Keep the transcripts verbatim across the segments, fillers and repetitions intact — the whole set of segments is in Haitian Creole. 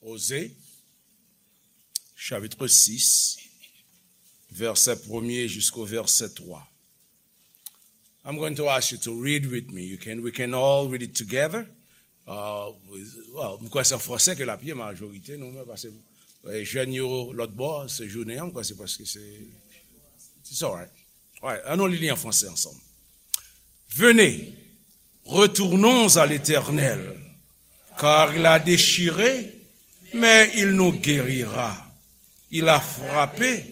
Oze, chapitre six, verset premier jusqu'au verset trois. I'm going to ask you to read with me. You can, we can all read it together. Uh, well, m kwè se an franse ke l ap ye majorite nou, men paske, eh, jèn yo lòt bò, se jounen an, m kwè se paske se, it's all right. All right, ann nou li li an franse ansanm. Venez, retournons à l'Éternel, car il a déchiré, mais il nous guérira. Il a frappé,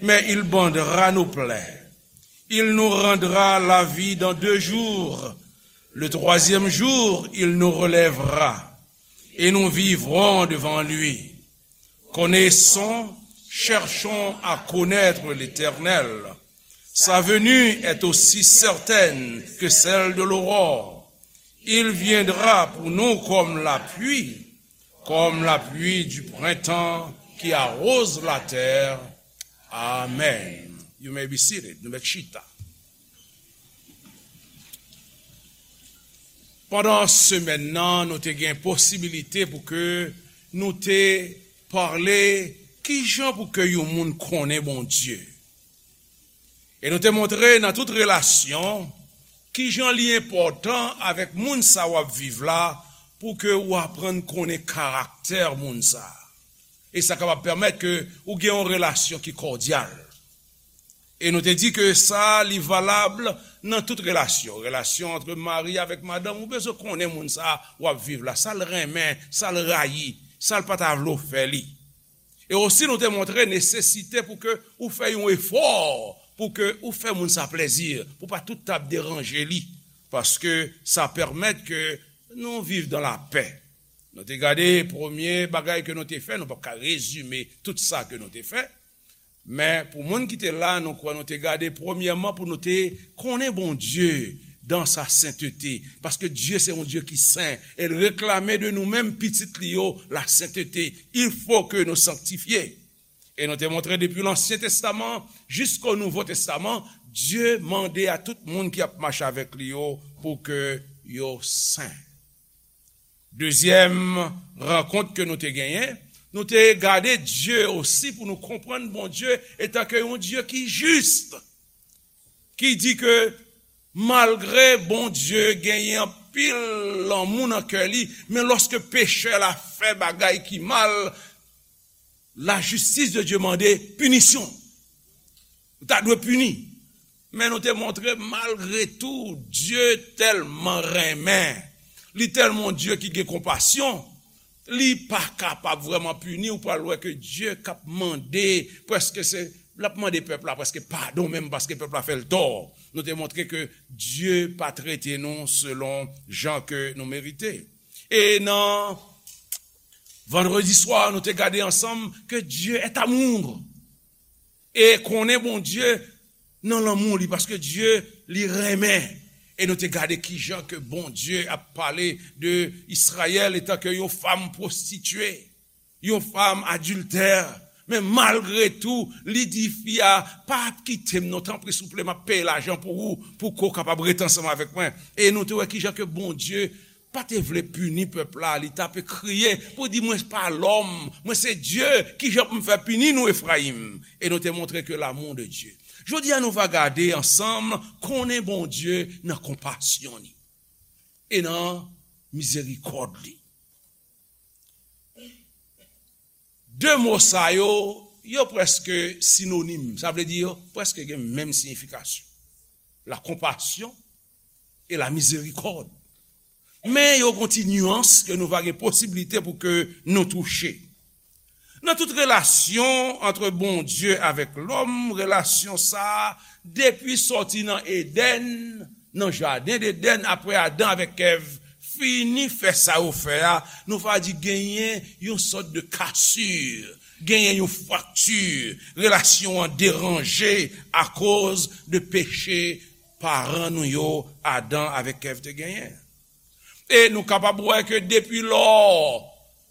mais il bandera nos plaies. Il nous rendra la vie dans deux jours. Le troisième jour, il nous relèvera, et nous vivrons devant lui. Connaissons, cherchons à connaître l'Éternel. Sa venue est aussi certaine que celle de l'aurore. Il viendra pour nous comme la pluie, comme la pluie du printemps qui arrose la terre. Amen. You may be seated. Nou mèt chita. Pandan semèn nan, nou te gen posibilite pou ke nou te pale kijan pou ke yon moun konnen Bondye. E nou te montre nan tout relasyon kijan li enpòtan avèk moun sa w ap viv la pou ke w aprann konnen karaktè moun sa. E sa kapab pèmèt ke ou gen yon relasyon ki kòdyal. E nou te di ke sa, li valab nan tout relasyon. Relasyon ant mari avèk madanm, ou bezwen konnen moun sa w ap viv la, sa l renmen, sa l rayi, sa l pa ta vle w fè li. E osi, nou te montre nesesite pou ke ou fè yon efò, pou ke ou fè moun sa plèzi, pou pa tout t ap deranje li, paske sa pèmèt ke nou viv dan lapè. Nou te gade premye bagay ke nou te fè, nou p ap ka rezime tout sa ke nou te fè, men pou moun ki te la, nou kwè nou te gade premyèman pou nou te konnen Bondye dan sa sentete, paske Dye se yon Dye ki sen, e l reklame de nou menm pitit li yo lasentete. Il faut que nous sanctifier. E nou te montre depi Lansyen Testaman jisko Nouvo Testaman, Dye mande a tout moun ki ap mache avèk li yo pou ke yo sen. Dezyèm rankont ke nou te genyen, nou te gade Dye osi pou nou konprann Bondye etan ke yon Dye ki jis, ki di ke malgre Bondye genyen anpil lanmou nan kè li, men lòske pechè la fè bagay ki mal, lajistis de Dye mande pinisyon. Ou ta dwe pini. Men nou te montre, malgre tou, Dye tèlman renmen. Li tèlman yon Dye ki gen konpasyon. Li pa kapab vrèman pini. Ou pral wè ke Dye k ap mande, prèske se, l ap mande pèp la prèske padon menm paske pèp la fè l tò. Nou te montre ke Dye pa trete nou selon jan ke nou merite. E nan vandredi swa, nou te gade ansanm ke Dye est amour. E konnen Bondye nan lanmou li, paske Dye, li renmen. E nou te gade kijan ke Bondye ap pale de Izrayèl etan ke yon fanm pwostitye, yon fanm adiltè. Men malgre tou, li di fi a, "Pa ap kite m non, tanpri, souple, m ap peye lajan pou ou, pou ke w kapab rete ansanm avèk mwen." E nou te wè kijan ke Bondye pa te vle pini pèp la, li t ape kriye pou di, "Mwen pa lòm, mwen se Dye, kijan pou m fè pini nou, Efrayim?" E nou te montre ke l'amour de Dieu. Jodi a, nou va gade ansanm konnen Bondye nan konpasyon li e nan mizerikòd li. De mo sa yo, yo prèske sinonim, sa vle di yo prèske gen menm siyifikasyon. La compassion et la miséricorde. Men yo gon ti nyans ke nou va gen posiblite pou ke nou touche. Nan tout relasyon ant Bondye avèk lòm, relasyon sa a, depi sòti nan Edenn, nan jaden Edenn, apre Adan avèk Èv fini fè sa yo fè a, nou va di genyen yon sòt de kasir, genyen yon frakti, relasyon an deranje akoz de peche paran nou yo, Adan avèk Èv, te genyen. E nou kapab wè ke depi lò,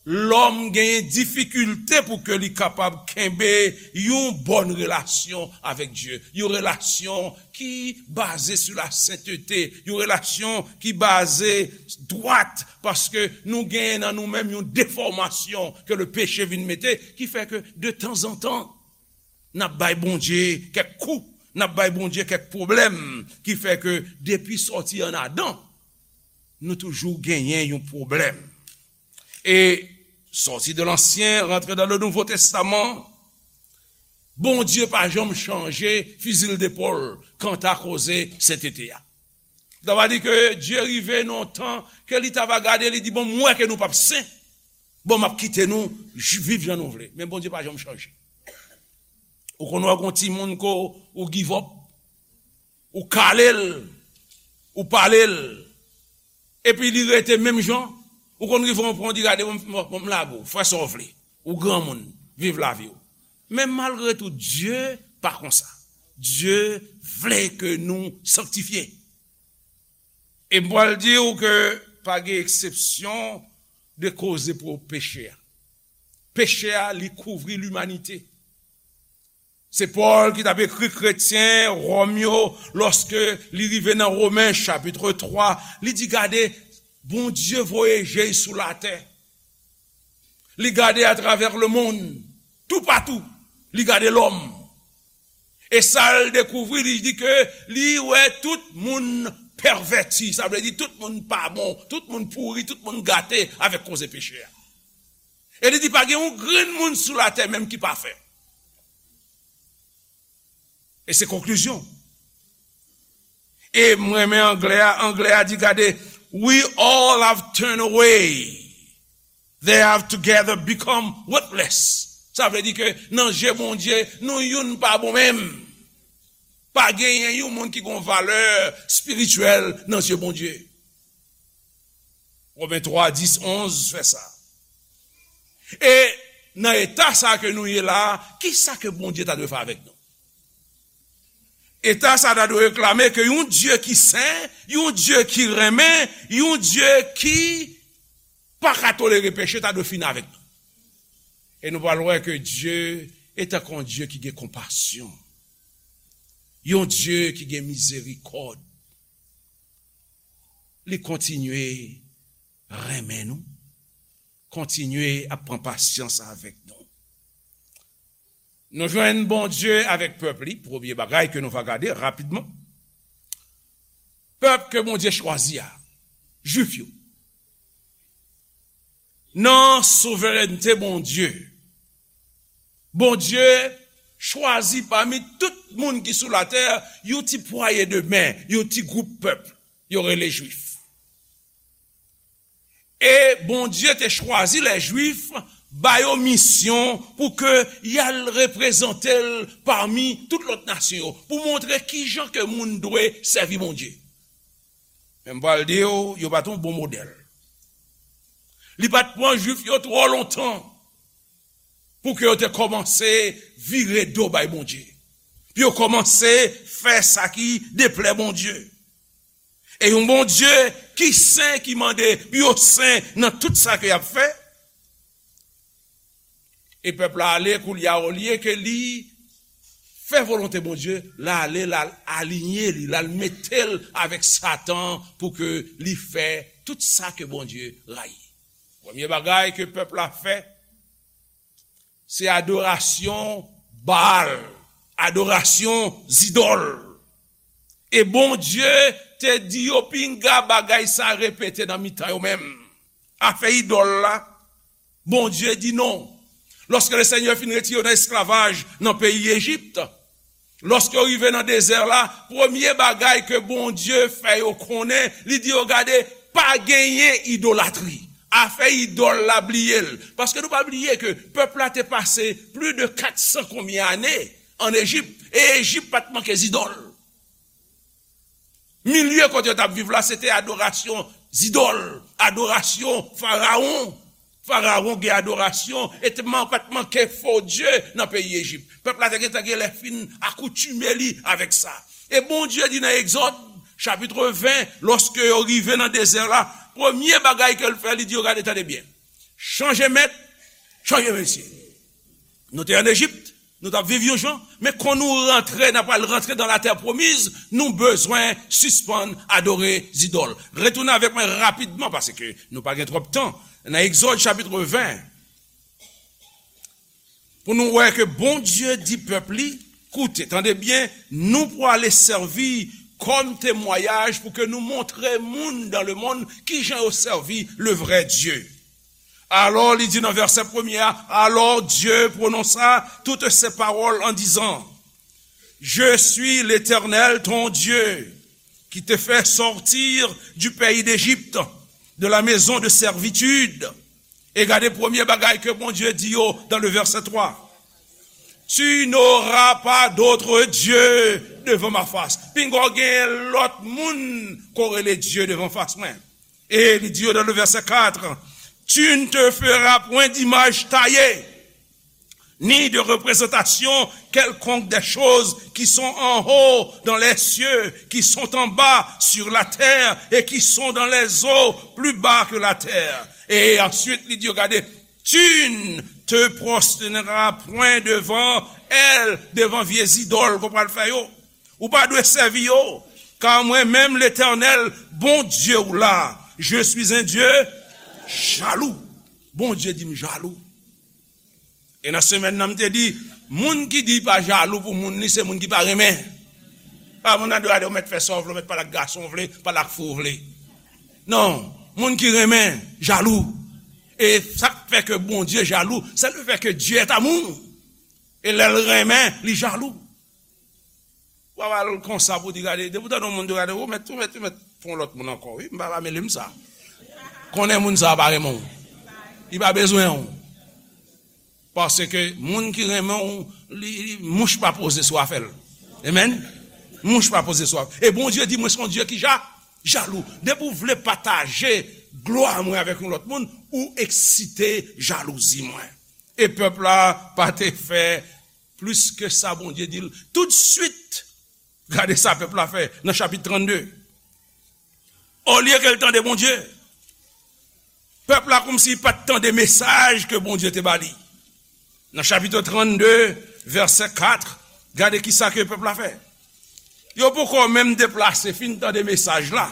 Lòm genyen difikilte pou ke li kapab kenbe yon bòn relasyon avèk Dye, yon relasyon ki baze sou la sentete, yon relasyon ki baze dwat, paske nou genyen nan nou menm yon defòmasyon ke le peche vin mete, ki fè ke de tanzantan, n ap bay Bondye kèk kou, n ap bay Bondye kèk pwoblèm, ki fè ke depi sòti ann Adan, nou toujou genyen yon pwoblèm. E sòti de Lansyen, rantre dan le Nouvo Testaman, Bondye pa janm chanje fizi l depòl kanta koze sentete a. Sa va di ke Dye rive nan yon tan ke li ta va gade, li di, "Bon, m wè ke nou p ap sen. Bon, m ap kite nou j- viv jan nou vle." Men Bondye pa janm chanje. Ou konn wè gon timoun ko ou give up, ou kale l, ou pale l, epi li rete menm jan, ou konn rive yon pwen, ou di, "Gade, bon, bon, bon, m lage w, fè sa w vle. Ou granmoun, viv lavi w." Men malgre tou, Dye pa konsa. Dye vle ke nou sanktifye. E m pral di w ke pa gen eksepsyon de koze pou peche a. Peche a, li kouvri limanite. Se Pòl ki t ap ekri kretyen Wòm yo, lòske li rive nan Women chapit twa, li di, "Gade, Bondye voye je l sou latè. Li gade atravè lemonn, toupatou, li gade lòm." E sa l dekouvri, li di ke li wè tout moun pèvèti, sa vle di tout moun pa bon, tout moun pouri, tout moun gate avèk koze peche a. E li di pa gen yon grenn moun sou latè menm ki pafè. E se konklizyon. E m renmen anglè a, anglè a di, gade, "We all have turned away. They have together become worthless." Sa vle di ke nan je Bondye, nou youn pa bon menm. Pa genyen yon moun ki gon valè espirityèl nan je Bondye. Women twa, dis, onz fè sa. E nan eta sa ke nou ye la, ki sa ke Bondye ta dwe fè avèk nou? Eta sa ta dwe reklame ke yon Dye ki sen, yon Dye ki renmen, yon Dye ki pa ka tolere peche ta dwe fini avèk nou. E nou pral wè ke Dye e tankou yon Dye ki gen konpasyon, yon Dye ki gen mizerikòd. Li kontinye renmen nou, kontinye ap pran pasyans avèk nou. Nou jwenn Bondye avèk pèp li, premye bagay ke nou va gade rapidman. Pèp ke Bondye chwazi a, Jwif yo. Nan souverènte Bondye, Bondye chwazi pami tout moun ki sou latè, yon ti pwaye de men, yon ti gwoup pèp, yo rele Jwif. E Bondye te chwazi lè Jwif, ba yo misyon pou ke y al reprezante l pami tout lòt nasyon yo, pou montre kijan ke moun dwe sèvi Bondye. Men m pral di w, yo pa t yon bon modèl. Li pa t pran Jwif yo twò lontan pou ke yo te kòmanse vire do bay Bondye, pou yo kòmanse fè sa ki deplè Bondye. E yon Bondye ki sen, ki mande pou yo sen nan tout sa ke y ap fè. E pèp la ale, koulye a, olye ke li fè volonte Bondye, l ale, l al alinye li, l al mete l avèk Satan pou ke li fè tout sa ke Bondye rayi. Premye bagay ke pèp la fè, se adorasyon Baal, adorasyon zidòl. E Bondye te di yo, "Pinga bagay sa repete nan mitan yo menm." Afè idòl la, Bondye di non. Lòske Lesenyè fin retire yo nan esklavaj nan peyi Ejip, lòske yo rive nan dezè la, premye bagay ke Bondye fè yo konnen, li di yo, "Gade, pa genyen idolatri." Afè idòl la, bliye l. Paske nou pa bliye ke pèp la te pase plis de kat san konbyen ane ann Ejip, e Ejip pa t manke zidòl. Milye kote yo t ap viv la, se te adorasyon zidòl, adorasyon farawon. Farawon gen adorasyon, e te man-, pa t manke fo dye nan peyi Ejip. Pèp la te gentan gen lè fin akoutime li avèk sa. E Bondye di nan Egzòd, chapit ven, lòske yo rive nan dezè la, premye bagay ke l fè, li di yo, "Gade, tande byen. Chanje mèt, chanje mesye. Nou te ann Ejip, nou t ap viv yon jan, men kon nou rantre, n ap pral rantre nan latè pwomiz, nou bezwen sispann adore zidòl. Retounen avèk mwen rapidman, paske nou pa gen twòp tan. Nan Egzòd chapit ven, pou nou wè ke Bondye di pèp li, koute, tande byen, nou prale sèvi kòm temwayaj pou ke nou montre moun dans le monde kijan yo sèvi le vrai Dieu. Alors, li di nan vèsè premye a, alors Dieu prononça toutes ces paroles en disant, Je suis l'Éternel, ton Dieu, qui te fait sortir du pays d'Égypte, de la maison de servitude. E gade premye bagay ke Bondye di yo dans le verset trois. Tu n'auras pas d'autre Dieu devant ma face. Pinga w gen lòt moun ko rele Dye devan fas mwen. E li di yo dans le verset quatre, Tu ne te feras point d'image taillée, ni de représentation quelconque des choses qui sont en haut dans les cieux, qui sont en bas sur la terre et qui sont dans les eaux plus bas que la terre. E answit, li di yo, gade, Tu ne te prosterneras point devant elles, devan vye zidòl ke w pral fè yo. Ou pa dwe sèvi yo, car moi-même, l'Éternel, Bondye w la, je suis un Dieu jaloux. Bondye di m jalou. E nan semèn nan, m te di, moun ki di pa jalou pou moun li, se moun ki pa renmen. Pa moun nan dwe ale, ou mèt fè sa w vle, ou mèt pale ak gason w vle, pale ak fi w vle. Non, moun ki renmen, jalou. E sa k fè ke Bondye jalou, c'est le fait que Dieu est amour. E lè l renmen, li jalou. Ou pa pral konsa pou di gade, depi w tande yon moun di gade, ou mèt, ou mèt, ou mèt fè yon lòt moun ankò, wi, m pa, pa mele m sa. Konnen moun sa a pa renmen w. Li pa bezwen w. Paske moun ki renmen w, li, li, mouch pa poze sou afè l. Amen. Mouch pa poze sou afè l. E Bondye di, mwen se yon Dye ki ja, jalou. Depi w vle pataje glwa mwen avèk yon lòt moun, ou eksite jalouzi mwen. E pèp la pa te fè plis ke sa Bondye di l. Toutswit, gade sa pèp la fè nan chapit trannde. Olye ke l tande Bondye, pèp la kòmsi pa t tande mesaj ke Bondye te ba li. Nan chapit trannde, vèsè kat, gade kisa ke pèp la fè. Yo poko menm deplase, fin tande mesaj la.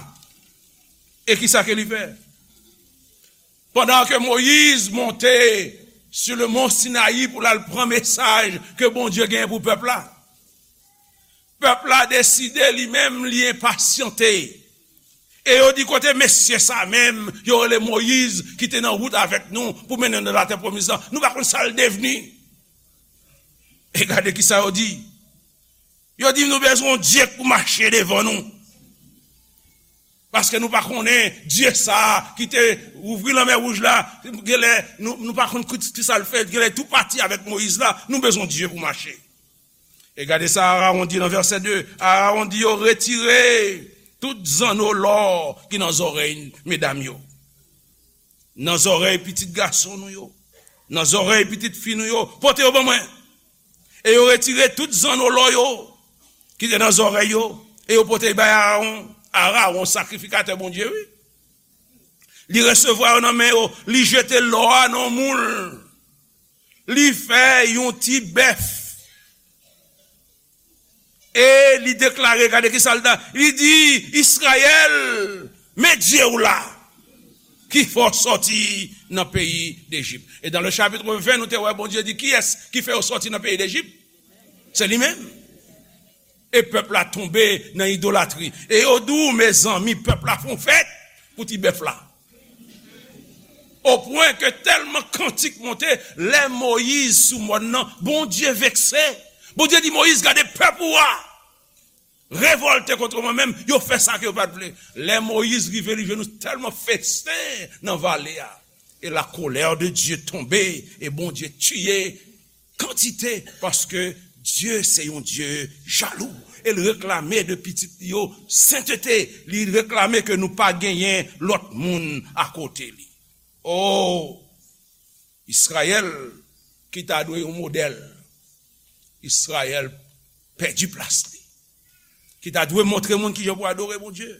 E kisa ke li fè? Pandan ke Moyiz monte sou le mont Sinayi pou l al pran mesaj ke Bondye genyen pou pèp la, pèp la deside li menm li enpasyante. E yo di, kote mesye sa menm yo rele Moyiz ki te nan wout avèk nou pou mennen nou nan latè pwomiz lan? Nou pa konn sa l devni. E gade kisa yo di. Yo di, nou bezwen yon Dye pou mache devan nou. Paske nou pa konnen Dye sa a ki te ouvri lanmè wouj la, genlè nou, nou pa konn ki, ki sa l fè, genlè tou pati avèk Moyiz la, nou bezwen Dye pou mache. E gade sa Arawon di nan vèsè de, Arawon di yo, retire tout zanno lò ki nan zòrèy medam yo, nan zòrèy pitit gason nou yo, nan zòrèy pitit fi nou yo, pote yo ban mwen. E yo retire tout zanno lò yo ki te nan zòrèy yo, e yo pote bay Arawon. Arawon sakrifikatè Bondye, wi. Li resevwa yo nan men yo, li jete lò a nan yon moul. Li fè yon ti bèf. E li deklare, gade kisa l ta, li di, Izrayèl, men Dye w la, ki fè w sòti nan peyi Dejip. E dans le chapitre vingt, nou te wè Bondye di, kiyès ki fè yo sòti nan peyi Dejip? Se li menm. E pèp la tonbe nan idolatri. E yo di w, mezanmi, pèp la fè yon fèt pou ti bèf la. O pwen ke tèlman kantik monte, lè Moyiz sou mòn nan, Bondye vekse. Bondye di Moyiz, gade pèp ou a revòlte kont mwen menm, yo fè sa ke yo pa t vle. Lè Moyiz rive, li jwenn nou tèlman festen nan vale a. Et la colère de Dieu tombée, e Bondye tiye kantite, paske Dye se yon Dye jalou. E l reklame de pitit li yo sentete, li reklame ke nou pa genyen lòt moun akote li. O, Izrayèl ki ta dwe yon modèl, Izrayèl pèdi plas li. Ki ta dwe montre moun kijan pou adore Bondye.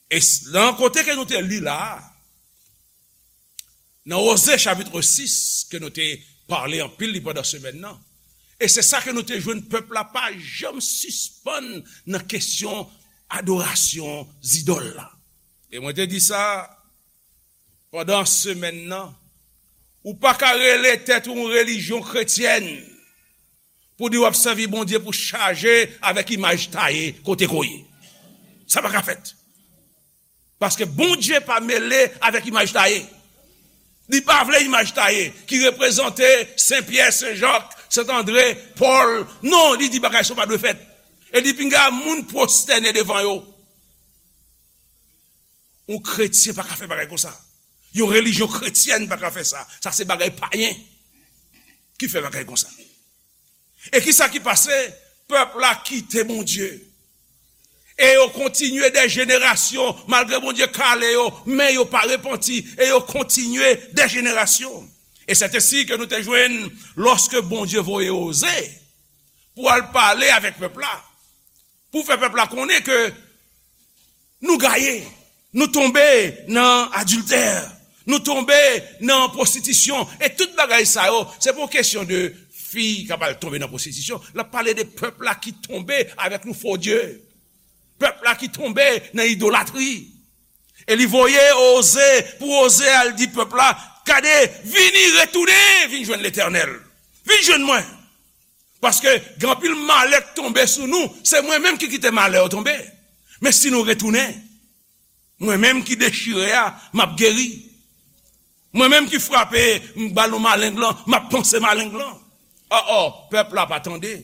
E s-, nan kote ke nou te li la a, Nan Oze chapit sis, ke nou te pale anpil li pandan semèn nan, e se sa ke nou te jwenn, pèp la pa janm sispann nan kesyon adorasyon zidòl la. E mwen te di sa pandan semèn nan, ou pa ka rele tèt ou yon relijyon kretyèn pou di w ap sèvi Bondye pou chaje avèk imaj taye kote ke w ye. Sa pa ka fèt. Paske Bondye pa mele avèk imaj taye. Li pa vle imaj taye ki reprezante Sen Pyè, Sen Jak, Sen Andre, Pòl. Non, li di bagay sa yo pa dwe fèt. E li pinga moun pwostène devan yo. Yon kretyen pa ka fè bagay konsa. Yon relijyon kretyèn pa ka fè sa. Sa se bagay payen ki fè bagay konsa. E kisa ki pase? Pèp la kite Bondye. E yo kontinye dè jenerasyon, malgre Bondye kale yo, men yo pa repanti, e yo kontinye dè jenerasyon. E sètesi ke nou te jwenn lòske Bondye voye Oze pou al pale avèk pèp la, pou fè pèp la konnen ke nou gaye, nou tonbe nan adiltè, nou tonbe nan pwostitisyon, e tout bagay sa yo, se pa yon kesyon de fi k ap al tonbe nan pwostitisyon, l ap pale de pèp la ki tonbe avèk yon fo dye, pèp la ki tonbe nan idolatri. E li voye Oze pou Oze al di pèp la, gade, vini, retounen, vin jwenn Letènèl. Vin jwenn mwen. Paske gen anpil malè k tonbe sou nou, se mwen menm ki kite malè yo tonbe. Men si nou retounen, mwen menm ki dechire a, m ap geri. Mwen menm ki frape, m ba nou maleng lan, m ap panse maleng lan. O, o, pèp la pa tande.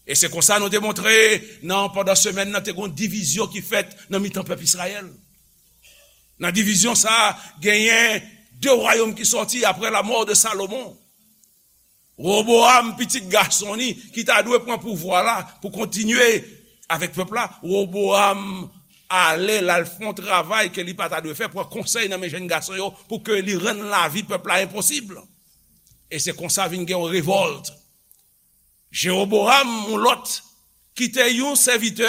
E se konsa nou te montre nan, pandan semèn nan, te gon divizyon ki fèt nan mitan pèp Izrayèl. Nan divizyon sa a, genyen de wayòm ki sòti apre la mort de Salomon. Woboam, pitit gason li, ki ta dwe pran pouvwa la pou kontinye avèk pèp la, Woboam ale, l al fè yon travay ke li pa ta dwe fè, pran konsèy nan men jèn gason yo pou ke li rann lavi pèp la enposib. E se konsa vin gen yon revòlt. Jewoboam, yon lòt, ki te yon sèvitè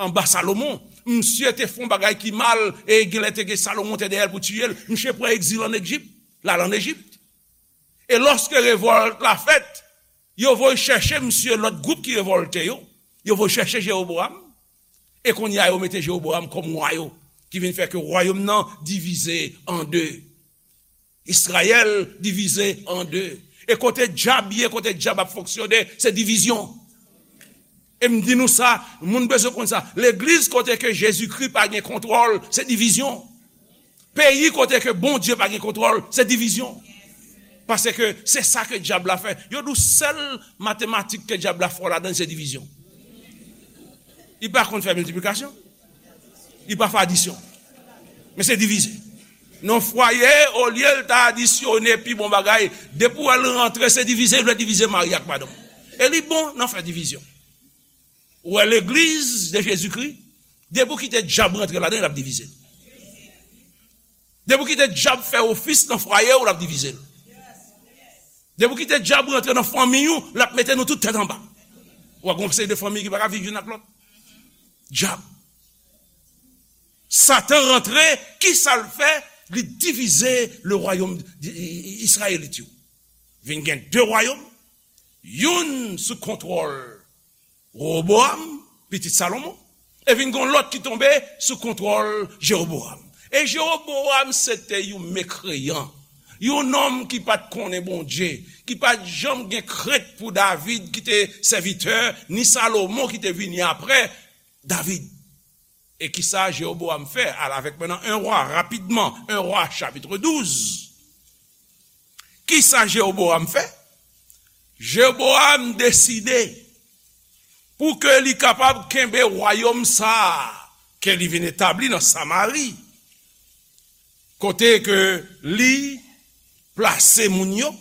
anba Salomon, misye te fè yon bagay ki mal, e genlè te gen Salomon te dèyè l pou tiye l. Misye pran egzil ann Ejip, l al ann Ejip. E lòske revòlt la fèt, yo voye chèche misye, lòt gwoup ki revòlte yo, yo voye chèche Jewoboam. E kounye a, yo mete Jewoboam kòm wa yo, ki vin fè ke wayòm nan divize an de. Izrayèl divize an de. E kote dyab ye, kote dyab ap fonksyone, se divizyon. E m di nou sa, moun bezwen konn sa. Legliz kote ke Jezikri pa gen kontwòl, se divizyon. Peyi kote ke Bondye pa gen kontwòl, se divizyon. Paske se sa ke dyab la fè. Yo di w sèl matematik ke dyab la fò ladan l, se divizyon. Li pa konn fè miltiplikasyon. Li pa fè adisyon. Men se divize. Nan fwaye, olye l ta adisyone pi bon bagay, depi w wè l rantre, se divize, l vle divize mari ak madanm. E li bon nan fè divizyon. Ou wè legliz de Jezikri, depi w kite dyab rantre ladan, l ap divize l. Depi w kite dyab fè ofis nan fwaye w, l ap divize l. Depi w kite dyab rantre nan fanmi w, l ap mete nou tout tèt anba. W ap gen yon seri de fanmi ki pa ka viv youn ak lòt. Dyab. Satan rantre, ki sa l fè? Li divize le wayòm Izrayelit yo. Vin gen de wayòm, youn sou kontwòl Rewoboam, pitit Salomon, e vin gen yon lòt ki tonbe sou kontwòl Jewoboam. E Jewoboam se te yon mekreyan, yon nonm ki pa t konnen Bondye, ki pa t janm gen krent pou David ki te sèvitè, ni Salomon ki te vini apre David. E kisa Jewoboam fè? Al avèk mwen nan en Wa, rapidman, en Wa, chapit douz. Kisa Jewoboam fè? Jewoboam deside pou ke li kapab kenbe wayòm sa a ke li vin etabli nan Samari, kote ke li plase moun yo.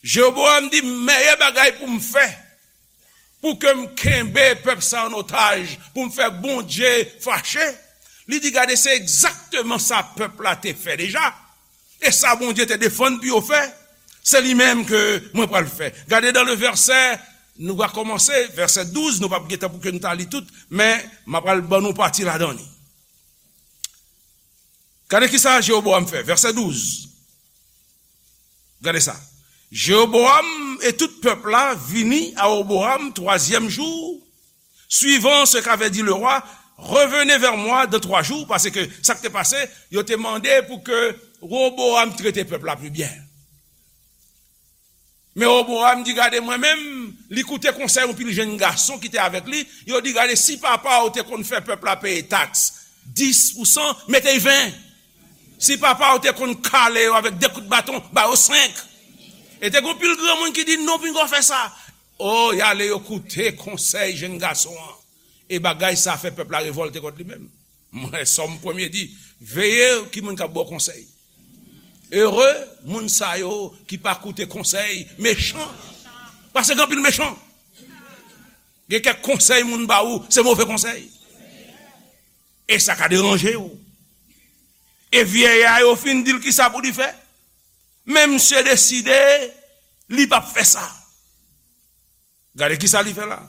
Jewoboam di, mèyè bagay pou m fè, pou ke m kenbe pèp sa an otaj, pou m fè Bondye fache. Li di, gade, se egzakteman sa pèp la te fè deja. E sa Bondye te defann pou yo fè, se li menm ke mwen pral fè. Gade dans le verset, nou va kòmanse, vèsè douz, nou p ap gen tan pou ke nou ta li tout, men m ap pral ban nou pati ladan li. Gade kisa Jewoboam fè, vèsè douz. Gade sa. Jéroboam et tout peuple là vini à Roboam troisième jour, suivant ce qu'avait dit le roi, revenez vers moi dans trois jours, paske sa k te pase, yo te mande pou ke Roboam trete pèp la pi byen. Men Roboam di, gade, mwen menm, li koute konsèy yon pil jèn gason ki te avèk li. Yo di, gade, si papa w te konn fè pèp la peye taks dis pou san, mete y ven. Si papa w te konn kale yo avèk de kout baton, ba yo senk. E te gen pil granmoun ki di, non, pinga w fè sa. O, y ale, yo koute konsèy jèn gason an. E bagay sa fè pèp la revòlte kont li menm. Mwen, Sòm premye di, veye ki moun k ap ba w konsèy. Ere moun sa yo ki pa koute konsèy mechan. Paske gen anpil mechan. Gen kèk konsèy moun ba ou, se move konsèy. E sa ka deranje w. E vyèy a yo fin di l kisa pou li fè. Men misye deside, li p ap fè sa. Gade kisa li fè la.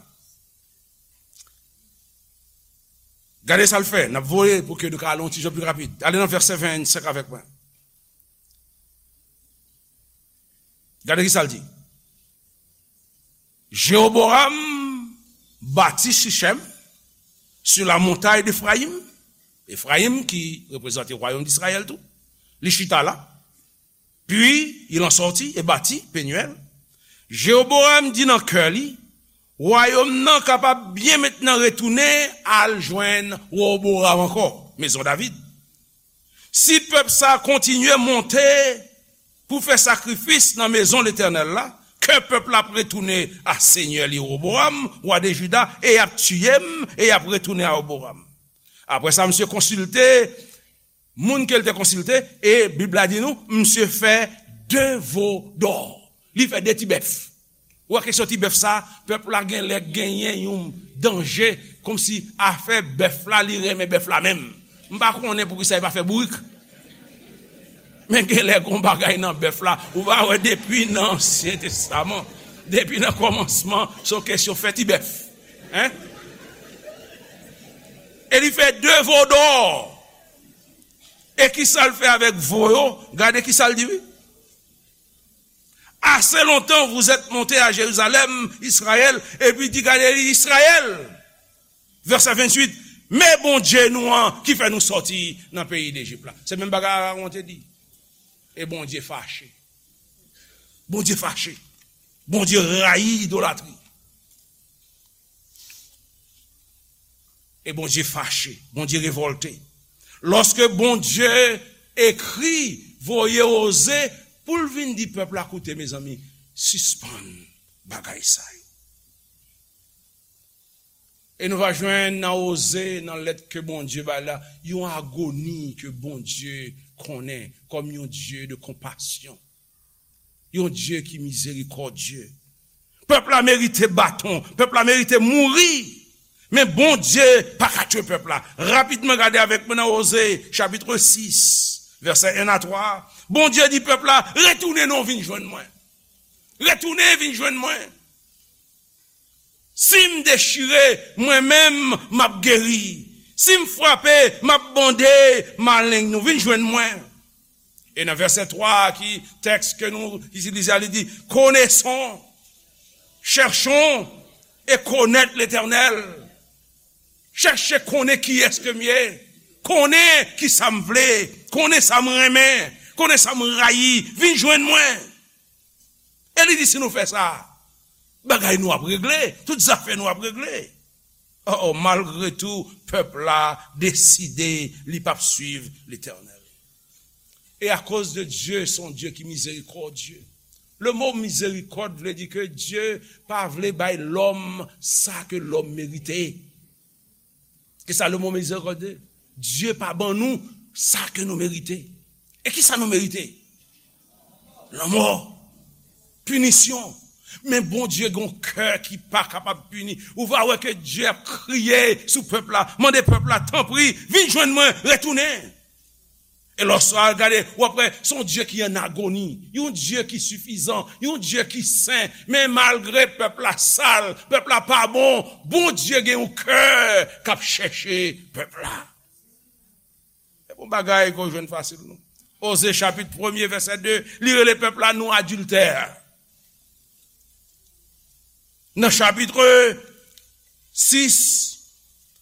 Gade sa l fè. N ap voye pou ke nou ka ale yon ti jan pi rapid. Ale nan vèsè vennsenk avèk mwen. Gade kisa l di. Jéroboam bâtit Sichem sur la montagne d'Éphraïm. Efrayim ki reprezante wayòm Izrayèl tou. Li chita la. Puis il en sortit et bâtit Penuel. Jéroboam di nan kè li, wayòm nan kapab byen mentnan retounen al jwenn Roboam ankò, mezon David. Si pèp sa a kontinye monte pou fè sakrifis nan mezon Letènèl la, kè pèp la ap retounen a senyè li Roboam, wa de Jida, e y ap tiye m, e y ap retounen a Roboam. Apre sa, misye konsilte moun ke l te konsilte, e Bib la di nou, misye fè de vo dò. Li fè de ti bèf. Ou wè kesyon ti bèf sa, pèp la gen lè genyen yon danje, kòmsi afè bèf la, li renmen bèf la menm. M pa konnen poukisa li pa fè bourik. Men gen lè gon bagay nan bèf la, ou pa wè depi nan Ansyen Testaman, depi nan kòmansman, se yon kesyon fè ti bèf. Hein? E li fè de vo dò. E kisa l fè avèk vo yo? Gade kisa l di, wi. Assez longtemps vous êtes monté à Jérusalem, Israël, epi di, gade, Israël. Vèsè venntuit, men Bondye nou an ki fè nou sòti nan peyi Lejip la. Se menm bagay Arawon te di. E Bondye fache. Bondye fache. Bondye rayi idolatri. E Bondye fache, Bondye revòlte. Lòske Bondye ekri, voye Oze pou l vin di pèp la, koute, mezanmi, sispann bagay sa yo. E nou va jwenn nan Oze, nan lèt ke Bondye bay la, yon agoni ke Bondye konnen kòm yon Dye de konpasyon. Yon Dye ki mizerikòdye. Pèp la merite baton, pèp la merite mouri. Men Bondye pa ka tchwe pèp la. Rapidman, gade avèk mwen nan Oze, chapit sis, vèsè en a twa. Bondye di pèp la, retounen non, vin jwenn mwen. Retounen, vin jwenn mwen. Si m dechire, mwen menm, m ap geri. Si m frape, m ap bande maleng nou. Vin jwenn mwen. E nan vèsè twa ki tèks ke nou itilize a, li di, connaissons, cherchons et connaître l'Éternel. Chèche konnen kiyès ke m ye. Konnen ki sa m vle. Konnen sa m renmen. Konnen sa m rayi. Vin jwenn mwen. E li di, si nou fè sa, bagay nou ap regle, tout zafè nou ap regle. Oh, oh, malgre tou, pèp la deside li p ap swiv Letènèl. E akoz de Dye, se yon Dye ki mizerikòdye. Le mo mizerikòd vle di ke Dye pa vle bay lòm sa ke lòm merite. Kisa le mo mizerikòdye? Dye pa ban nou sa ke nou merite. E kisa nou merite? Lanmò. Pinisyon. Men Bondye gen yon kè ki pa kapab pini. Ou va wè ke Dye ap kriye sou pèp la, mande pèp la, tanpri, vin jwenn mwen, retounen. E lòske w al gade, w ap wè, se yon Dye ki an agoni, yon Dye ki sifizan, yon Dye ki sen. Men malgre pèp la sal, pèp la pa bon, Bondye gen yon kè k ap chèche pèp la. E bon bagay ke w jwenn fasil, non. Oze chapit premye, vèsè de, li rele pèp la nou adiltè. Nan chapit sis,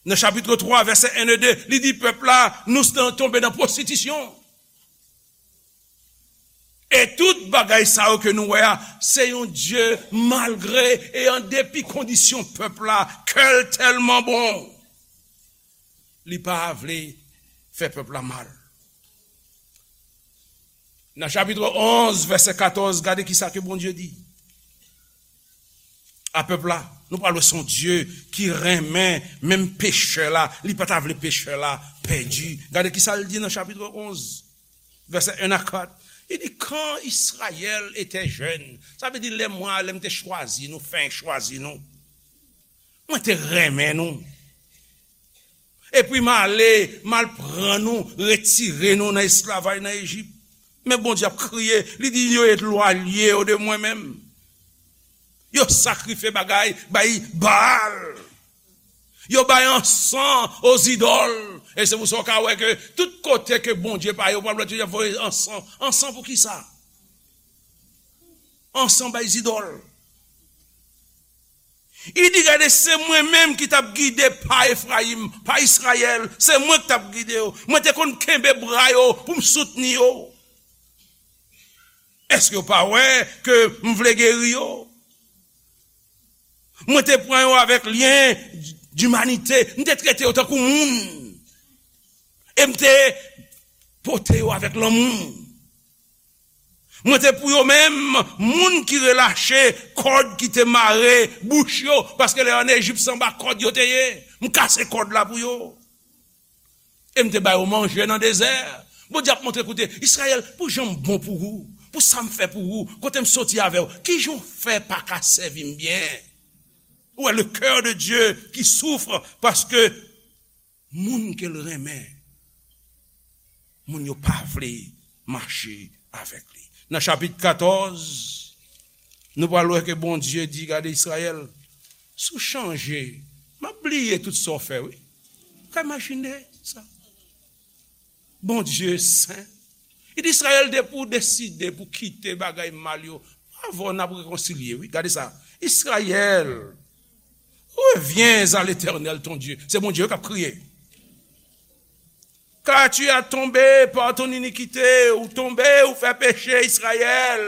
nan chapit twa, vèsè en e de, li di pèp la nou s-, tonbe nan pwostitisyon. E tout bagay sa yo ke nou wè a, se yon Dye malgre e an depi kondisyon pèp la, kè l tèlman bon, li pa vle fè pèp la mal. Nan chapit onz, vèsè katòz, gade kisa ke Bondye di a pèp la. Nou pral wè se yon Dye ki renmen menm pechè la, li pa ta vle pechè la pèdi. Gade kisa l di nan chapit onz, vèsè en a kat. Li di, quand Israël était jeune, sa vle di lè mwen, lè m te chwazi nou, fen chwazi nou. Mwen te renmen nou. Epi m ale, m al pran nou, retire nou nan esklavaj nan Ejip. Men Bondye ap kriye, li di, yo elwaye yo de mwen menm. Yo sakrifye bagay, bay Baal. Yo bay ansan o zidòl. E se pou sa w ka wè ke tout kote ke Bondye pa ye, w pral wè yo voye ansan. Ansan pou kisa? Ansan bay zidòl. Li di, gade, se mwen menm ki t ap gide pa Efrayim, pa Izrayèl, se mwen ki t ap gide yo. Mwen te konn kenbe bra yo pou m soutni yo. Èske yo pa wè ke m vle geri yo? Mwen te pran yo avèk lyen dimanite, m te trete yo tankou moun. E m te pote yo avèk lanmou. Mwen te pou yo menm, moun ki relache kòd ki te mare bouch yo, paske lè yo ann Ejip se anba kòd yo te ye. M kase kòd la pou yo. E m te ba yo manje nan dezè. Bondye ap montre, koute, Izrayèl, pou jan m bon pou ou, pou sa m fè pou ou, kote m soti avè w, kijan w fè pa ka sèvi m byen? Ou wè, le cœur de Dieu qui souffre, paske moun ke l renmen, moun yo pa vle mache avèk li. Nan chapit katòz, nou pral wè ke Bondye di, gade Izrayèl, si w chanje, m ap bliye tout sa w fè, wi. Ou ka imajine sa? Bondye sen. Li di, Izrayèl, depi w deside pou kite bagay mal yo, avè w n ap rekonsilye, wi. Gade sa. Israël, reviens à l'Éternel ton Dieu. Se Bondye k ap kriye. Car tu as tombé par ton iniquité, ou tonbe, ou fè peche, Izrayèl.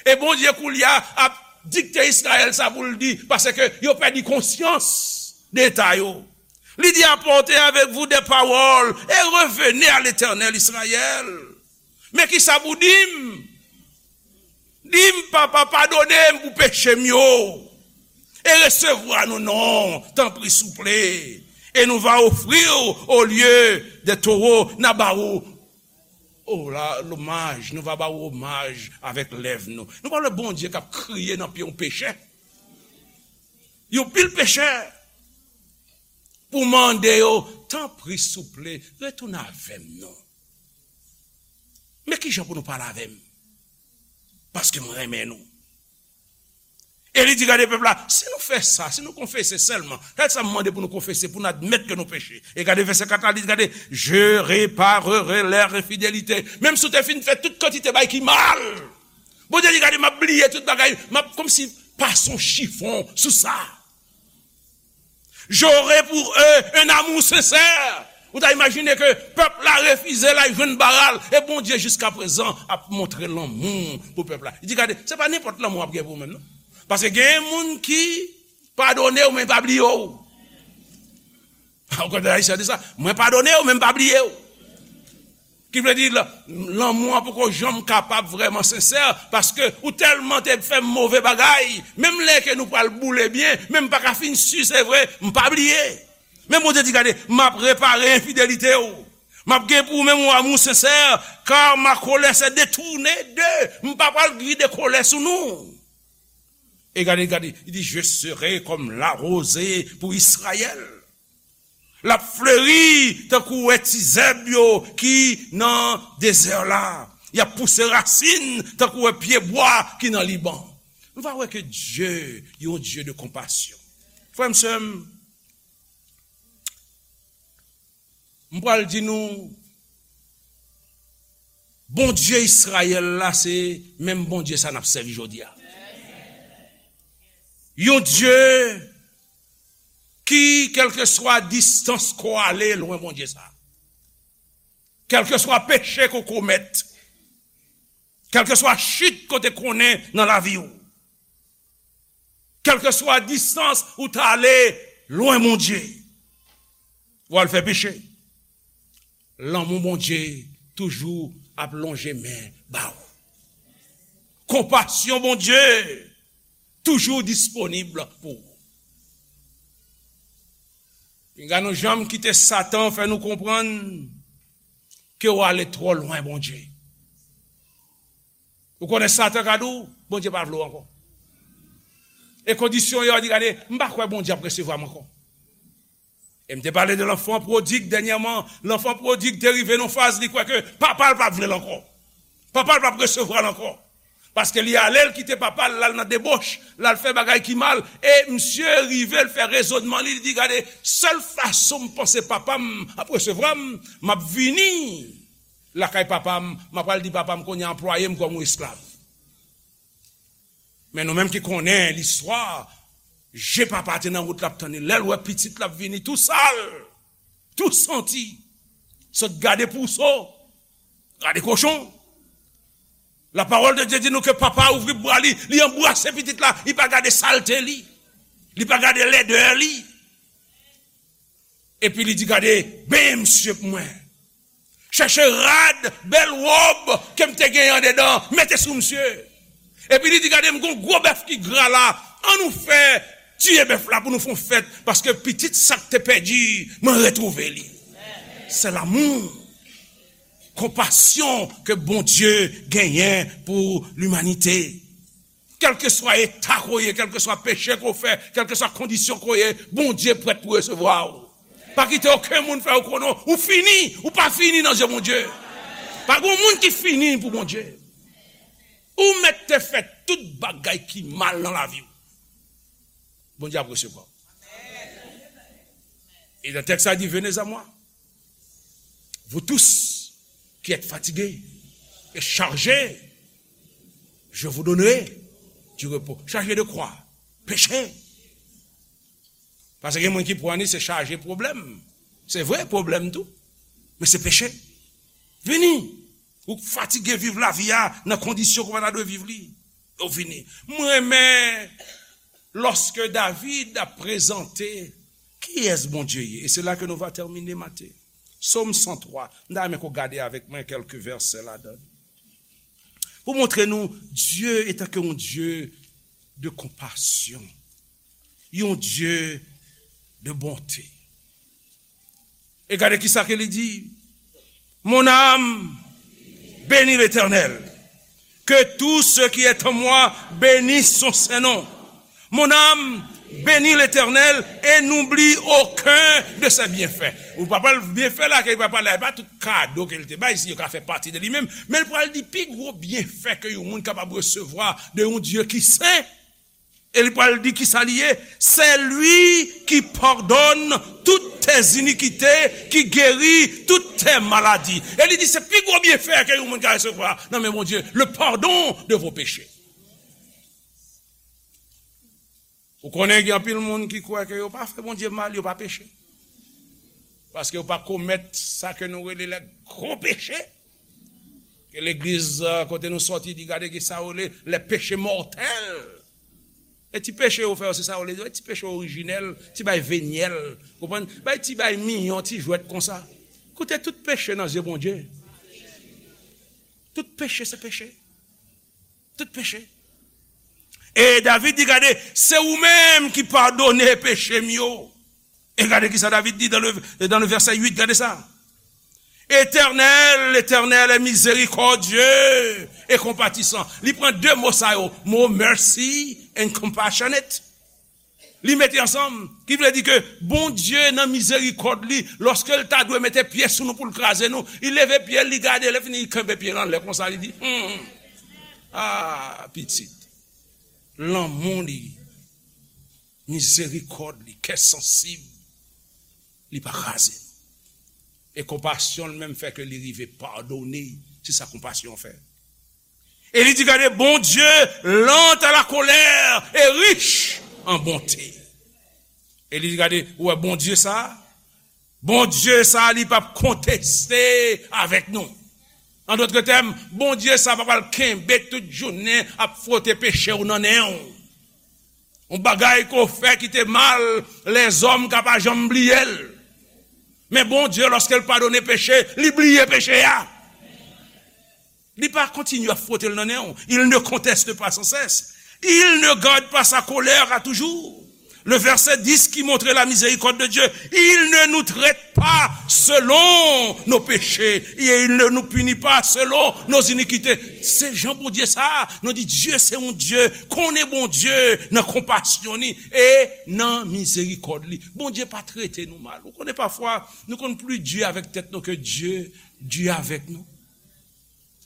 E Bondye koulye a ap dikte Izrayèl sa pou l di, paske yo pèdi konsyans de eta yo. Li di, apportez avec vous des paroles et revenez à l'Éternel, Israël. Men kisa pou di m? Di m, Papa, padone m pou peche m yo. E resevwa nou non, tanpri, souple. Et nous va offrir au lieu des taureaux, n a ba ou, o la, lomaj, nou va ba ou omaj avèk lèv nou. Nou pa wè Bondye k ap kriye nan pye yon pechè. Yon pil pechè. Pou mande yo, tanpri, souple, retounen avè m non. Men kijan pou nou pale avè m? Paske m renmen nou. E li di, gade pèp la, si nou fè sa, si nou konfese sèlman, gade sa m mande pou nou konfese, pou n admèt ke nou peche. E gade vèsè kat la, li di, gade, je réparerai leur infidélité. Menm si w te fin fè tout kantite bagay ki mal, Bondye di, gade, m ap bliye tout bagay, m ap kòmsi pase yon chifon sou sa. J'aurai pour eux un amour sincère. Ou ta imajine ke pèp la refize l al jwenn Baal, e Bondye jiskaprezan ap montre lanmou pou pèp la. Li di, gade, se pa nenpòt lanmou w ap gen pou ou menm, non. Paske gen moun ki padone w, men pa bliye w. Ou konn ayisyen di sa, mwen padone w, men m pa bliye w. Ki vle di, la-, lanmou an poko janm kapab vrèman sensè, paske ou tèlman te fè m move bagay, menm lè ke nou pral boule byen, men m pa ka fin si se vre, m pa bliye. Men Bondye di, gade, m ap repare enfidelite w. M ap gen pou ou menm yon amou sensè, car ma colère s'est détournée d'eux. M pa pral vide kolè sou nou. E gade, gade, li di, je serai comme la rosée pour Israël. L ap fleri tankou wè ti zèb yo ki nan dezè la. Y ap pouse rasin tankou wè pye bwa ki nan Liban. Nou va wè ke Dye, yon Dye de konpasyon. Frè m, sè m, m pral di nou, Bondye Izrayèl la, se menm Bondye sa n ap sèvi jodi a. Yon Dye ki, kèlkeswa distans ko ale, lwen Bondye sa. Kèlkeswa peche ko komèt, kèlkeswa chit kote konnen nan lavi w, kèlkeswa distans ou ta ale lwen Bondye, w al fè peche. Lanmou Bondye toujou ap lonje men ba w. Konpasyon Bondye toujou disponib pou ou. Pinga nou janm kite Satan fè nou konprann ke w ale twò lwen Bondye. Ou konnen Satan ka di w, Bondye pa vle w ankò. E kondisyon yo, di, gade, m pa kwè Bondye ap resevwa m ankò. E m te pale de lanfan pwodig dènyèman. Lanfan pwodig te rive nan faz li kwè ke papa l pa vle l ankò. Papa l p ap resevwa l ankò. Paske li ale, l kite papa l, l al nan deboch, l al fè bagay ki mal. E misye rive, l fè rezònman li, li di, gade, sèl fason m panse papa m ap resevwa m, m ap vini lakay papa m, m ap al di papa m kounye a anplwaye m kòm yon esklav. Men nou menm ki konnen listwa, je papa te nan wout l ap tann li. Lè l wè pitit l ap vini tou sal, tou santi, sot gade pouso, gade kochon. La parole de Dieu di nou ke papa a ouvri bra li, li anbrase pitit la, li pa gade salte li, li pa gade lèdè li. Epi li di, gade, benyen misye pou mwen. Chèche rad, bèl wòb ke m te genyen andedan, mete sou misye. Epi li di, gade, m gon gwo bèf ki gra la, ann nou fè tiye bèf la pou nou fè yon fèt, paske pitit sa k te pèdi, mwen retwouve li. Se lanmou, konpasyon ke Bondye genyen pou limanite. Kèlkeswa eta ko ye, kèlkeswa peche ko fè, kèlkeswa kondisyon ko ye, Bondye prèt pou resevwa w. Pa kite okenn moun fè w konnen ou fini, ou pa fini nan je Bondye. Pa gen moun ki fini pou Bondye. Ou mèt te fè tout bagay ki mal nan lavi w, Bondye ap resevwa w. E nan tèks la di, venez à moi, vous tous qui êtes fatigués et chargés, je vous donnerai du repos. Chargé de quoi? Peche. Paske gen moun ki pran li se chaje pwoblèm. Se vre, pwoblèm tou. Men se peche. Vini. Ou fatige viv lavi a nan kondisyon ke w pa ta dwe viv li. Ou vini. M renmen lòske David ap prezante kiyès Bondye ye. E se la ke nou va tèmine maten. Sòm san twa. M ta renmen ke w gade avèk mwen kèlke vèsè ladan. Pou montre nou, Dye etan ke yon Dye de konpasyon, yon Dye de bonte. E gade kisa ke li di, mon âme, bénis l'Éternel. Que tout ce qui est en moi bénisse son saint nom. Mon âme, bénis l'Éternel et n'oublie aucun de ses bienfaits. Ou pa pral byenfè la, ke li pa pale, pa tout kado ke li te bay, si yo ka fè pati de li menm. Men li pral di pi gwo byenfè ke yon moun kapab resevwa de yon Dye ki sen. E li pral di kisa li ye, c'est lui qui pardonne toutes tes iniquités, qui guérit toutes tes maladies. E li di se pi gwo byenfè ke yon moun ka resevwa nan men Bondye, le pardon de vos péchés. Ou konnen gen anpil moun ki kwè ke yo pa fè Bondye mal, yo pa peche. Paske yo pa komèt sa ke nou rele lè gwo peche. Ke legliz, euh, kote nou sòti, di gade ki sa yo rele les péchés mortels. E ti peche yo fè yo, se sa yo rele, ti peche orijinèl, ti bay venyèl, konprann? Bay ti bay miyon, ti jwèt konsa. Koute, tout peche nan zye Bondye. Tout peche se peche. Tout peche. E David di, gade, se ou menm ki padone peche m yo. E gade kisa David di dans le, dans le verset huit, gade sa. Éternel, l'Éternel est miséricordieux et compatissant. Li pran de mo sa yo, mo mercy and compassionate. Li mete ansanm, ki vle di ke Bondye nan mizerikòd li, lòske l ta dwe mete pye sou nou pou l kraze nou, li leve pye l, li gade, lè fini, li kenbe pye l anlè konsa, li di, hmm, ah, pitit, lanmou li, mizerikòd li, kè sansib, li pa kraze nou. E konpasyon l menm fè ke li rive padone Se sa konpasyon fè. E li di, gade, Bondye lent à la colère et riche en bonté. E li di, gade, ou wè Bondye sa a? Bondye sa a, li p ap konteste avèk nou. An dòt tèm, Bondye sa a pa pral kenbe tout jounen ap fwote peche w nan nen w. Yon bagay ke w fè ki te mal, lèzòm ka pa janm bliye l. Men Bondye, lòske l padone peche, li bliye peche a. Li pa kontinye ap fwote l nan nen w. Il ne conteste pas sans cesse. Il ne garde pas sa colère à toujours. Le verset dix qui montre la miséricorde de Dieu. Il ne nous traite pas selon nos péchés. Et il ne nous punit pas selon nos iniquités. Se jan Bondye sa a, nou di Dye se yon Dye, konnen Bondye nan konpasyon li e nan mizerikòd li. Bondye pa trete nou mal. Ou konnen pafwa, nou konn pli di avèk tèt nou ke Dye di avèk nou.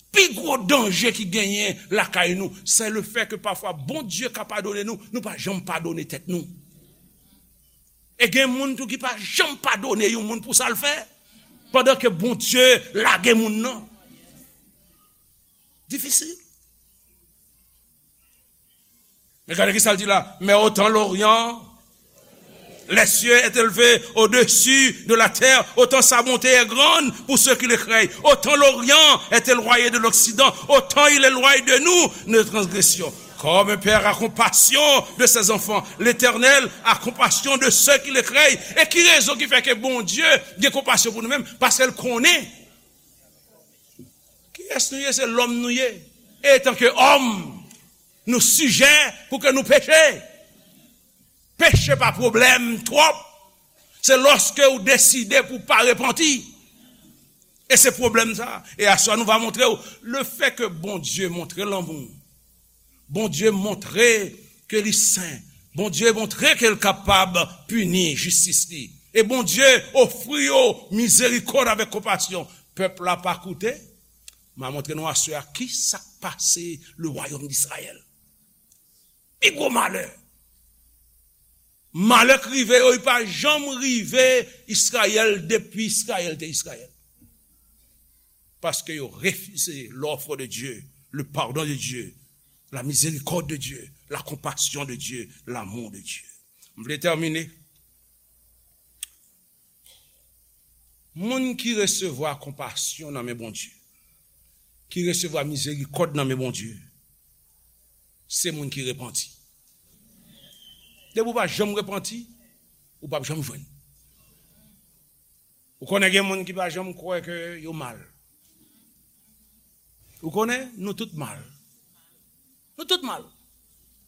Pi gwo danje ki genyen lakay nou, se le fè ke pafwa Bondye ka padone nou, nou pa janm padone tèt nou. E gen moun tou ki pa janm padone yon moun pou sa l fè, pandan ke Bondye lage moun nan. Difisil. Men gade ki sa l di la. Mais autant l'Orient, les cieux est élevé au-dessus de la terre, autant sa bonté est grande pour ceux qui le craignent. Autant l'Orient est éloigné de l'Occident, autant il éloigne de nous nos transgressions. Comme un père a compassion de ses enfants, l'Éternel a compassion de ceux qui le craignent. E ki rezon ki fè ke Bondye gen konpasyon pou nou menm? Paske l konnen kiyès nou ye, se lòm nou ye. E etanke òm, nou sijè pou ke nou peche. Peche pa pwoblèm twòp. Se lòske ou deside pou pa repanti. E se pwoblèm sa. E aswè nou va montre w, le fè ke Bondye montre lanmou, Bondye montre ke li sen, Bondye montre ke l kapab pini jistis li. E Bondye ofri yo mizerikòd avèk konpasyon. Pèp la pa koute. M a montre nou aswè a ki sa k pase le wayòm d'Izrayèl. Pi gwo malè. Malè k rive yo, li pa janm rive Izrayèl depi Izrayèl te Izrayèl. Paske yo refize l'offre de Dieu, le pardon de Dieu, la miséricorde de Dieu, la compassion de Dieu, l'amour de Dieu. M vle tèmine. Moun ki resevwa konpasyon nan men Bondye, ki resevwa mizerikòd nan men Bondye, se moun ki repanti. Depi w pa janm repanti, ou p ap janm jwenn. Ou konnen gen moun ki pa janm kwè ke yo mal. Ou konnen, nou tout mal. Nou tout mal.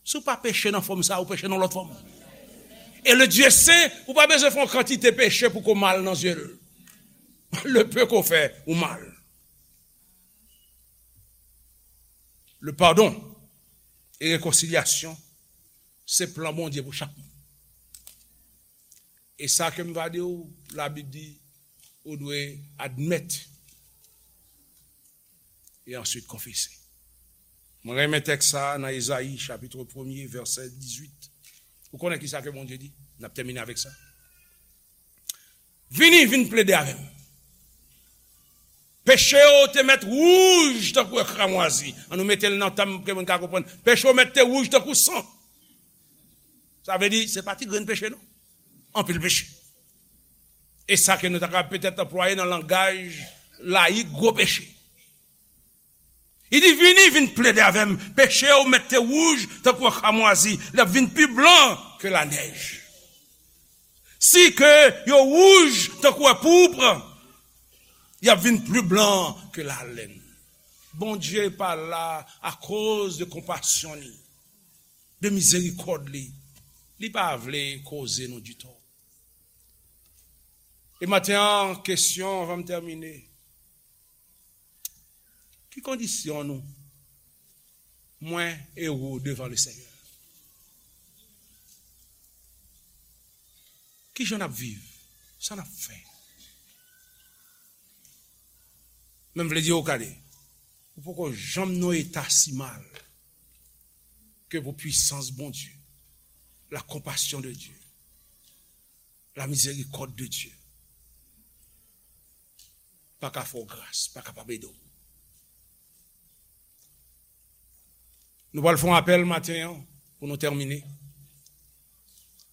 Si w pa peche nan fòm sa, ou peche nan lòt fòm. E le Dieu saint, ou pa bezwen fè yon kantite peche pou ko mal nan zye l. Le peu ko fè, ou mal. Le pardon e rekonsilyasyon, se plan Bondye pou chak moun. E sa ke m va di w, Labib di, ou dwe admèt e answit konfese. Mwen renmen tèks sa a nan Ezayi, chapit premye, vèsè dizuit. Ou konnen ki sa ke Bondye di? N ap tèmine avèk sa. Vini, vin plede avè m. Peche w te mèt wouj tankou kramwazi. An nou mete l nan tèm ke moun ka konprann. Peche w mèt te wouj tankou san. Sa vle di, se pa ti grenn peche, non. Anpil peche. E sa ke nou ta ka petèt anplwaye nan langaj layik, gwo peche. Li di, vini, vin plede avè m. Peche w mèt te wouj tankou kramwazi. L ap vin pi blan ke lanèj. Si ke yo wouj tankou poupre, y ap vin pli blan ke lalèn. Bondye pa la akoz de konpasyon li, de mizerikòd li. Li pa vle koze nou ditou. E maten an, kesyon, anvan m tèmine. Ki kondisyon nou, mwen e ou, devan le Senyè? Ki jan n ap viv? Sa n ap fè? Men m vle di w, gade, ou poko janm nan yon eta si mal ke pou pwisans Bondye, la konpasyon de Dye, la mizerikòd de Dye pa ka fè w gras, pa kapab ede w. Nou pral fè yon apèl maten an pou nou tèmine.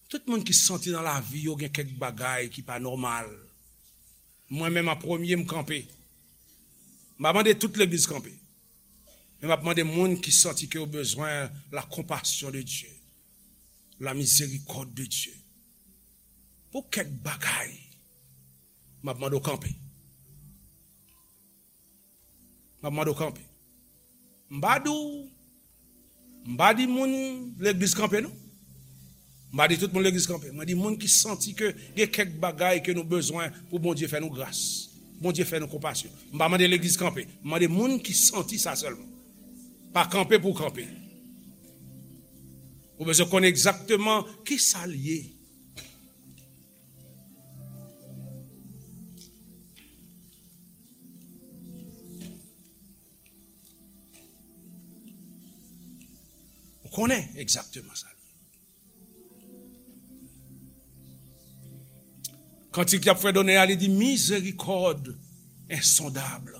Tout moun ki santi nan lavi yo gen kèk bagay ki pa nòmal. Mwen menm an premye, m kanpe. M pa mande tout legliz kanpe. Men m ap mande moun ki santi ke yo bezwen la compassion de Dieu, la miséricorde de Dieu. Pou kèk bagay, m ap mande w kanpe. M ap mande w kanpe. M pa di w, m pa di moun legliz kanpe non. M pa di tout moun legliz kanpe. Mwen di moun ki santi ke gen kèk bagay ke nou bezwen pou Bondye fè nou gras. Bondye fè nou konpasyon. M pa mande legliz kanpe. M mande moun ki santi sa sèlman. Pa kanpe pou kanpe. Ou bezwen konnen egzakteman ki sa l ye. Ou konnen egzakteman sa l ye. Kantik y ap fè donnen a, li di, miséricorde insondable.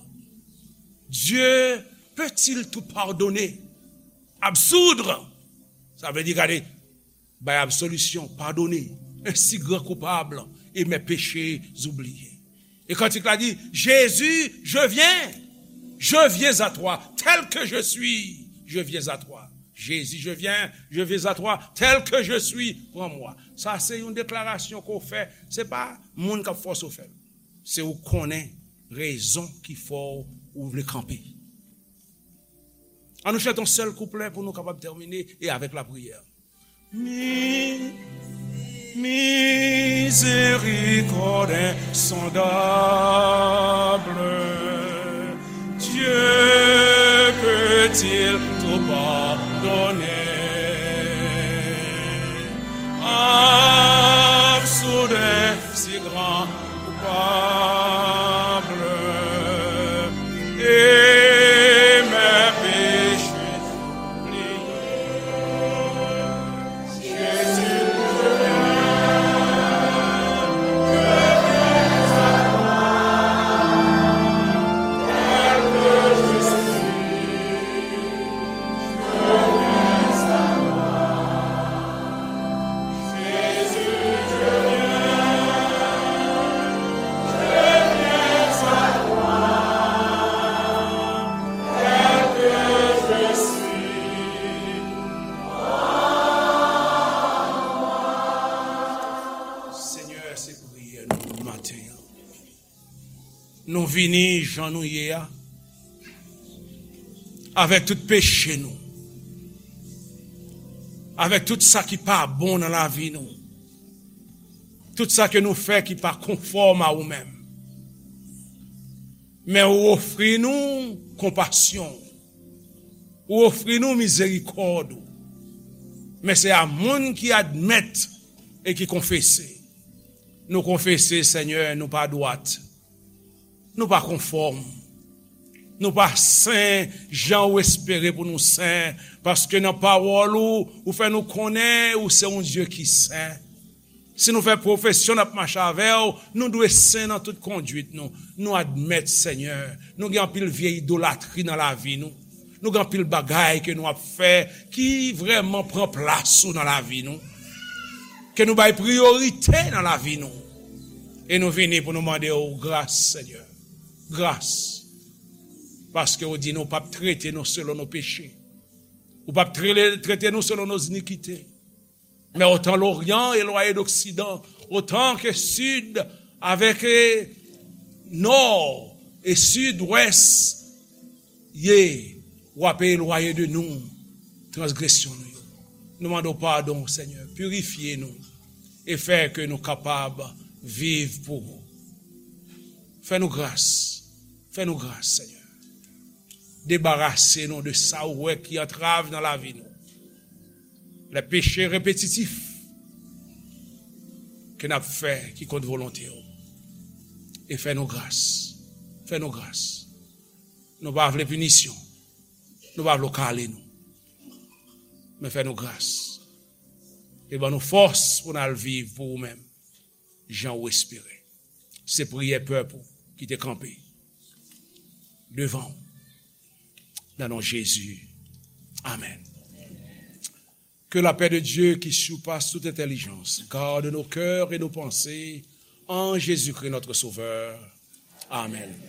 Dieu peut-il tout pardonner? Absoudre. Sa vle di, gade, bay absolisyon, pardonner un si grand coupable et mes péchés oubliés. E kantik la di, Jésus, je viens, je viens à toi, tel que je suis, je viens à toi. Jésus, je viens, je viens à toi, tel que je suis, prends-moi. Sa se yon deklarasyon ke w fè, se pa moun k ap fòse w fè l. Se ou konnen rezon ki fè w vle kanpe. An nou chante yon sèl kouplè pou nou kapab tèmine e avèk lapriyè. Mi-, miséricorde insondable, Dieu peut-il tout pardonner? Absoudre si grand coupable et mes péchés oubliés. Jésus, Senyè, se priyè nou maten an. Nou vini jan nou ye a, avèk tout peche nou, avèk tout sa ki pa bon nan lavi nou, tout sa ke nou fè ki pa konfòm a ou menm. Men ou ofri nou konpasyon, ou ofri nou mizerikòd ou. Men se a moun ki admèt e ki konfese. Nou konfese, Senyè, nou pa dwat. Nou pa konfòm. Nou pa sen jan ou espere pou nou sen, paske nan pawòl ou, ou fè nou konnen ou se yon Dye ki sen. Si nou fè pwofesyon n ap mache avè w, nou dwe sen nan tout konduit nou. Nou admèt, Senyè, nou gen anpil vye idolatri nan lavi nou. Nou gen anpil bagay ke nou ap fè ki vrèman pran plas ou nan lavi nou. Ke nou bay priyorite nan lavi nou. E nou vini pou nou mande w gras, Senyè. Gras. Paske ou di nou p ap trete nou selon nou peche. Ou p ap tre-, trete nou selon nou inikite. Men otan Loryan elwaye d Oksidan, otan ke Sid avèk, eh, Nò e Sidwès ye, w ap elwaye de nou transgresyon nou yo. Nou mande w padon, Senyè, pirifye nou e fè ke nou kapab viv pou ou. Fè nou gras, fè nou gras, Senyè. Debarase nou de sa ou wè ki antrav nan lavi nou. Les péchés répétitifs ke n ap fè ki kont volonte w. E fè nou gras. Fè nou gras. Nou pa vle pinisyon. Nou pa vle w kale nou. Men fè nou gras. E ban nou fòs pou n al viv pou ou menm, jan ou espere. Se priyè pèp ou ki te kanpe devan w. Nan non Jezi. Amen. Que la paix de Dieu qui surpasse toute intelligence garde nos cœurs et nos pensées en Jésus-Christ notre Sauveur. Amen.